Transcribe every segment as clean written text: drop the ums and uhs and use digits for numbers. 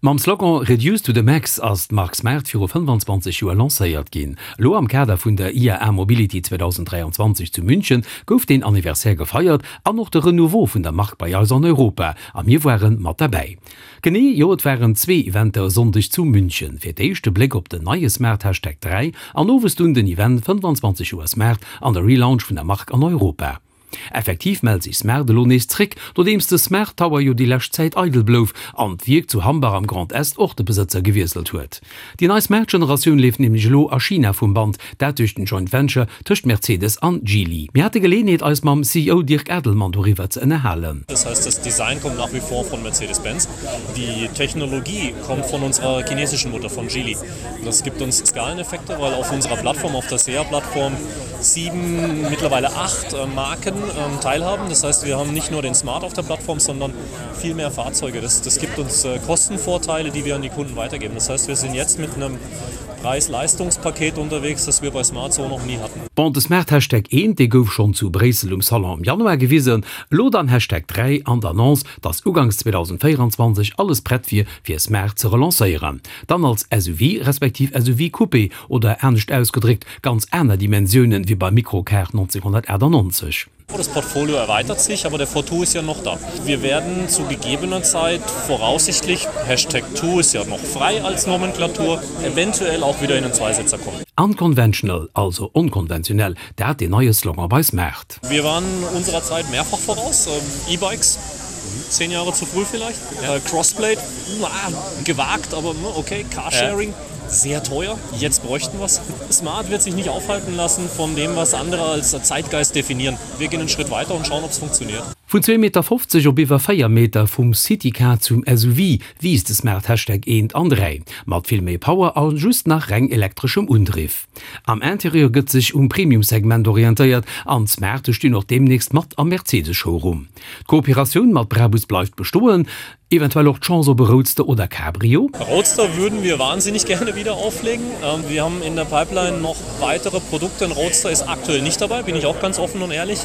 Mam Slogan Reduce to the Max ass d'Mark Smart viru 25 Joer lancéiert ginn. Elo am Kader vun der IAA Mobility 2023 zu München gouf deen Anniversaire gefeiert an och de Renouveau vun der Mark bei eis an Europa a mir ware mat derbäi. Genee, jo et waren zwee Eventer e Sonndeg zu München. Fir d'éischt de Bléck op den neie Smart Hashtag 3 an owes dunn den Event 25 Joer Smart an de Relaunch vun der Mark an Europa. Effektiv mellt sech Smart elo nees zréck, nodeems de Smart Tower jo déi lescht Zäit eidel blouf an d'Wierk zu Hambach am Grand Est och de Besëtzer gewiesselt huet. Déi nei Smart-Generatioun leeft nämlech elo a China vum Band, dat duerch den Joint Venture tëscht Mercedes an Geely. Mir hate Geleeënheet eis mam CEO Dirk Adelmann doriwwer ze ënnerhalen. Das heißt, das Design kommt nach wie vor von Mercedes-Benz, die Technologie kommt von unserer chinesischen Mutter, von Geely. Das gibt uns Skaleneffekte, weil auf unserer Plattform, auf der SEA-Plattform, sieben, mittlerweile acht äh, Marken ähm, teilhaben. Das heißt, wir haben nicht nur den Smart auf der Plattform, sondern viel mehr Fahrzeuge. Das, das gibt uns äh, Kostenvorteile, die wir an die Kunden weitergeben. Das heißt, wir sind jetzt mit einem Preis-Leistungspaket unterwegs, das wir bei Smart so noch nie hatten. Bon, de Smart Hashtag 1, dee gouf schonn zu Bréissel um Salon am Januar gewisen. Elo dann Hashtag 3 an d'Annonce, dass uganks 2024 alles prett wier, fir Smart ze relancéieren. Dann als SUV respektiv SUV-Coupé oder anescht ausgedréckt, ganz aner Dimensiounen wéi beim Microcar 1998. Das Portfolio erweitert sich, aber der Fortwo ist ja noch da. Wir werden zu gegebener Zeit voraussichtlich, Hashtag Two ist ja noch frei als Nomenklatur, eventuell auch wieder in den Zweisitzer kommen. Unconventional, also onkonventionell, dat deen neie Slogan bei Smart. Wir waren unserer Zeit mehrfach voraus, E-Bikes, zehn Jahre zu früh vielleicht, Crossblade, gewagt, aber okay, Carsharing, sehr teuer, jetzt bräuchten wir's. Smart wird sich nicht aufhalten lassen von dem, was andere als Zeitgeist definieren. Wir gehen einen Schritt weiter und schauen, ob's funktioniert. Vun zwee Meter 50 op iwwer 4 Meter, vum Citycar zum SUV, wiisst de Smart Hashtag eent an 3, mat vill méi Power a just nach reng elektreschem Undriff. Am Interieur gëtt sech um Premium-Segment orientéiert an d'Smarte stinn och deemnächst mat am Mercedes-Showroom. D'Kooperatioun mat Brabus bleift bestoen. Eventuell och d'Chance op e Roadster oder Cabrio? Roadster würden wir wahnsinnig gerne wieder auflegen. Wir haben in der Pipeline noch weitere Produkte. Ein Roadster ist aktuell nicht dabei, bin ich auch ganz offen und ehrlich.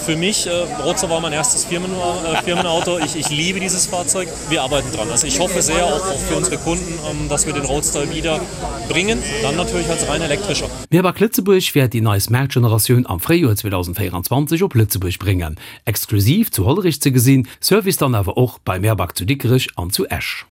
Für mich, Roadster war mein erstes Firmenauto. Ich, ich liebe dieses Fahrzeug. Wir arbeiten dran. Also ich hoffe sehr auch für unsere Kunden, dass wir den Roadster wieder bringen, dann natürlich als rein elektrischer. Mirback Lëtzebuerg wäert déi nei Smart-Generatioun am Fréijoer 2024 op Lëtzebuerg bréngen. Exklusiv zu Hollerich ze gesinn, Service dann awer och bei Merbag zu Dikrech an zu Esch.